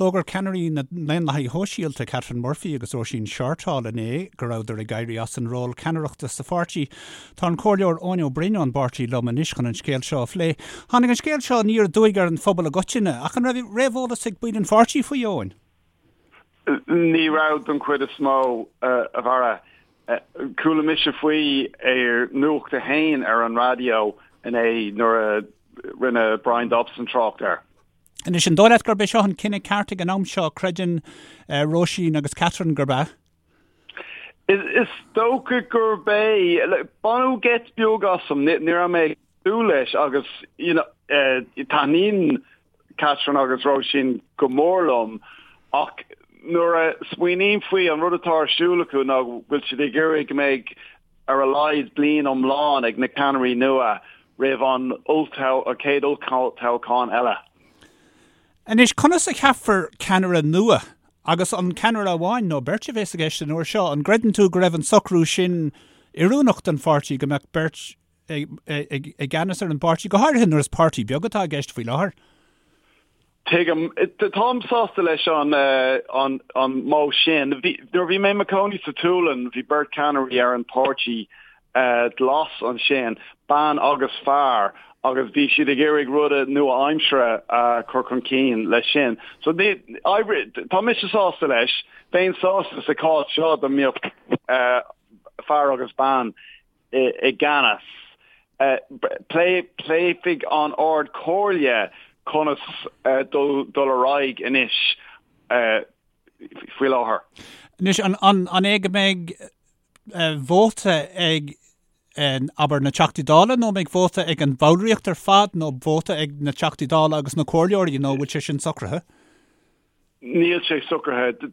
D'fhógair ceannairí na nDaonlathaithe Shóisialta, Catherine Murphy agus Róisín Shortall inné go rabhadar ag éirí as an ról ceannaireachta sa pháirtí. Tá an Comhairleoir Eoin Ó Broin ón bpáirtí liom anois chun an scéal seo a phlé. Tháinig an scéal seo aniar aduaidh ar an phobal i gcoitinne, ach an raibh réamheolas ag baill an pháirtí faoi, Eoin? Ní raibh don chuid is mó, a Bharra. Chuala mise faoi ar Nuacht a hAon ar an raidió inné nuair a rinne Bryan Dobson trácht air. Anois, an dóigh leat gurb é seo an cinneadh ceart ag an am seo? Creideann Róisín agus Catherine gurb ea. Is dócha gurb é. Baineadh geit beag asam. Ní raibh mé ag súil leis agus you know, taitníonn Catherine agus Róisín go mór liom ach nuair a smaoiním faoi an rud atá ar siúl acu ná go bhfuil siad ag iarraidh go mbeidh ar a laghad bliain iomlán ag na ceannairí nua roimh an chéad olltoghchán eile. Anois, conas a cheapfar ceannaire nua? Agus an ceannaire amháin nó beirt a bheas i gceist an uair seo? An gcreideann tú go raibh an socrú sin oiriúnach don pháirtí, go mbeadh beirt i gceannas ar an bpáirtí, go háirithe nuair is páirtí beag atá i gceist faoi láthair? Tuigim. Táim sásta leis an an modh sin. Nuair a bhí mé i mo chónaí sa tSualainn, bhí beirt ceannairí ar an páirtí glas ansin, bean agus fear, agus bhí siad ag iarraidh ruda nua-aimseartha a chur chun cinn leis sin. So tá mise sásta leis. Bheinn sásta sa chás seo dá mbeadh fear agus bean i gceannas. Pléifidh an Ard Chomhairle conas dul ar aghaidh anois faoi láthair. Anois, an é go mbeidh vóta ag, abair, na Teachtaí Dála nó an mbeidh vóta ag an bhallraíocht ar fad nó vóta ag na Teachtaí Dála agus na Comhairleoirí nó an bhfuil sé sin socraithe? Níl sé socraithe.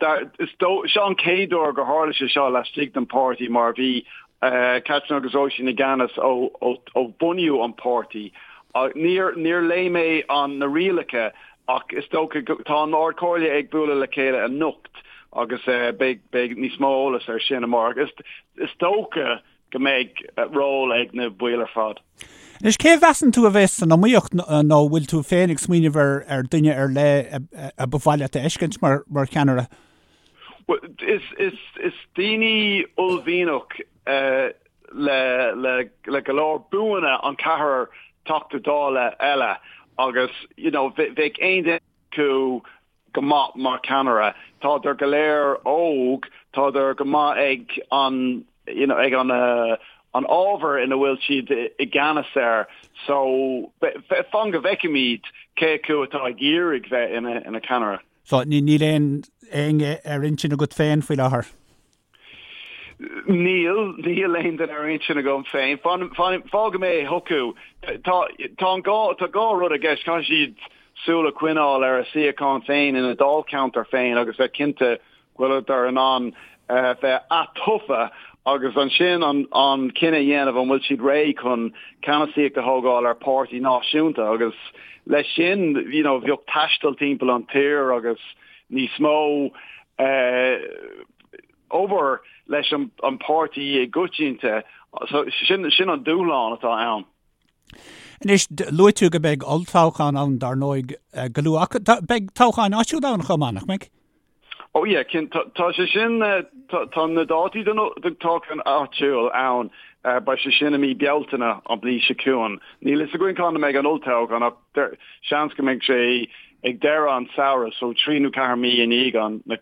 Seo an chéad uair gur tharla sé seo laistigh den pháirtí mar bhí Catherine agus Róisín i gceannas ó bunaíodh an páirtí. Níor léigh mé na rialacha ach is dócha go tá an Ard Chomhairle ag bualadh le chéile anocht agus beidh níos mó eolas ar sin amárach. Is dócha go mbeidh ról ag na baill ar fad. Anois, cé a mheasann tú a bheas san iomaíocht nó bhfuil tú féin ag smaoineamh ar ar duine ar leith a ba mhaith leat a fheiscint mar mar cheannaire? Well, is is is daoine uaillmhianach le le le go leor buanna an ceathrar Teachta Dála eile agus you know bheadh aon duine acu go maith mar cheannaire. Tádar go léir óg, tádar go maith ag an you know ag an an ábhar ina bhfuil siad i gceannas air so fan go bhfeicfimid cé acu atá ag iarraidh bheith ina ina ceannaire. So níl aon éinne ar intinn agat féin faoi láthair? Níl, níl aon duine ar intinn agam féin. Fágfaidh mé chucu. Tá, tá an gá, tá dhá rud i gceist. Caithfidh siad súil a choinneáil ar a suíochán féin ina dáilcheantar féin agus bheith cinnte go bhfuileadar in ann bheith atofa agus ansin an, an cinneadh a dhéanamh an bhfuil siad réidh chun ceannasaíocht a thógáil ar páirtí náisiúnta agus leis sin, you know, bheadh taisteal timpeall an tír agus níos mó eh, obair leis an páirtí i gcoitinne. So sin sin an dúshlán atá ann. Anois, luaigh tú go mbeidh olltoghchán ann dar ndóigh go luath, ach beidh toghcháin áitiúla ann chomh maith, nach mbeidh? Oh yeah, cinnte, tá sé sin, tá na dátaí don toghchán áitiúil ann, beidh sé sin i mí Bealtaine an bhliain seo chugainn. Níl fhios againn cá mbeidh an olltoghchán ach seans go mbeidh sé ag deireadh an samhradh, so 3 nó 4 mí i ndiaidh an na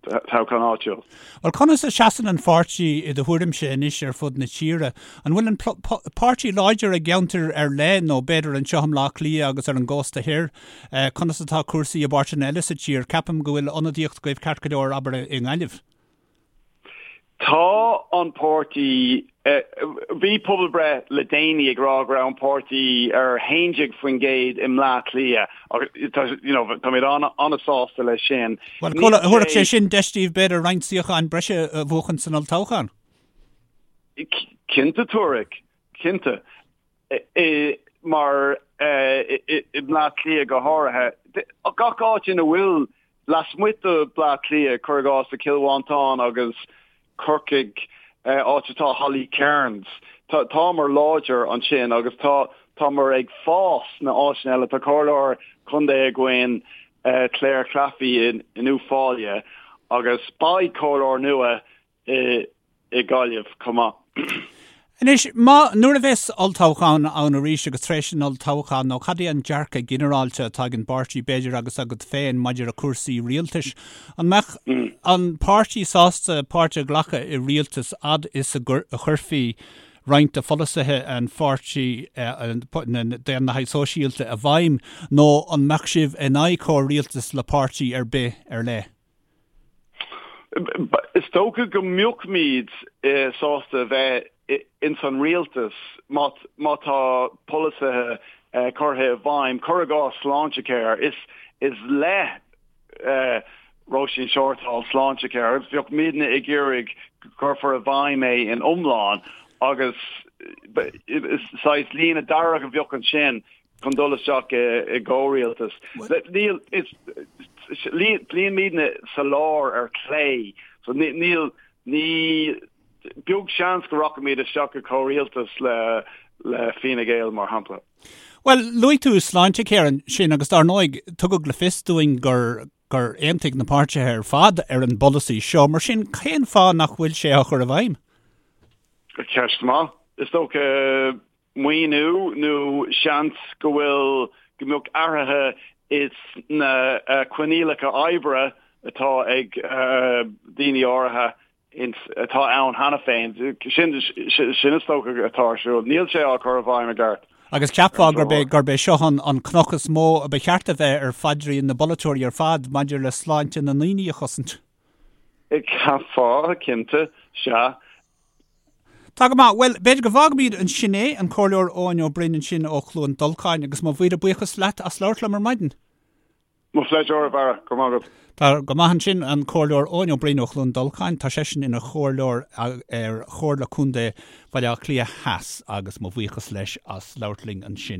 toghchán áitiúil. Bhuel, conas a seasann an pháirtí i do thuairimse anois ar fud na tíre? An bhfuil an páirtí láidir i gceantair ar leith nó b'fhéidir anseo i mBleá Cliath agus ar an gcósta thoir? Conas atá cúrsaí i bpáirteanna eile sa tír? Ceapaim go bhfuil ionadaíocht agaibh ceart go leor, abair, i nGaillimh. Tá an páirtí, bhí pobalbhreith le déanaí ag rá go raibh an páirtí ar 11% i mBleá Cliath agus tá, you know, táimid an-sásta leis sin. Bhuel, thabharfadh sé sin deis daoibh b'fhéidir roinnt suíocháin breise a bhuachan san olltoghchán. Cinnte, tabharfaidh, cinnte. Mar i mBleá Cliath go háirithe, gach áit ina bhfuil lasmuigh de Bleá Cliath, cuir i gcás i Cill Mhantáin agus Corcaigh, áit atá Holly Cairns, támar láidir ansin agus tá támar ag fás sna áiteanna eile. Tá comhairleoir contae againn. Clare Claffey in Uíbh Fhailí agus beidh comhairleoir nua i Gaillimh chomh maith. Anois, má, nuair a bheas olltoghchán ann arís agus tar éis an olltoghcháin, nó cad é an dearcadh ginearálta atá ag an bpáirtí, b'fhéidir, agus agat féin maidir le cúrsaí rialtais? An mbeadh an páirtí sásta páirt a ghlacadh i rialtas fhad is a chuirfí roinnt de pholasaithe an pháirtí, na Daonlathaigh Sóisialta, i bhfeidhm, nó an mbeadh sibh in aghaidh comhrialtas le páirtí ar bith ar leith? Is dócha go mbeadh-muid sásta bheith ins an rialtas má tá polasaithe curtha i bhfeidhm, cuir i gcás Sláintecare. Is le Róisín Shortall Sláintecare agus bheadh muidne ag iarraidh go gcuirfear i bhfeidhm é in iomlán agus saghas líne dearg a bheadh ansin chun dul isteach i gcomhrialtas. Níl, is, luíonn muidne sa lár ar clé, so níl, ní, beag seans go rachaimid isteach i gcomhrialtas le, le Fine Gael, mar shampla. Bhuel, luaigh tú Sláintecare ansin agus dar ndóigh, tugadh le fios dúinn gur, gur aontaigh na páirtithe ar fad ar an bpolasaí seo, mar sin cén fáth nach bhfuil sé á chur i bhfeidhm? Ceist maith. Is dócha maoiniú nó seans go bhfuil, go mbeadh athruithe is na coinníollacha oibre atá ag daoine áirithe atá ann cheana féin. Sin, sin is dócha atá ar siúl. Níl sé á chur i bhfeidhm i gceart. Agus cheapfá gurb é, gurb é seo an, an cnoc is mó a ba cheart a bheith ar phaidrín na bpolaiteoirí ar fad maidir le sláinte na ndaoine a chosaint. Cheapfá, cinnte, sea. Tá go maith. Bhuel, b'fhéidir go bhfágfaimid ansin é, an Comhairleoir Eoin Ó Broin ansin ó Chluain Dolcáin, agus mo mhíle buíochas leat as labhairt liom ar maidin. Mo phléisiúr, a Bharra. Go raibh maith agat. Tá go maith ansin, an Comhairleoir Eoin Ó Broin ó Chluain Dolcáin. Tá seisean ina chomhairleoir ar Chomhairle Contae Bhaile Átha Cliath Theas agus mo bhuíochas leis as labhairt linn ansin.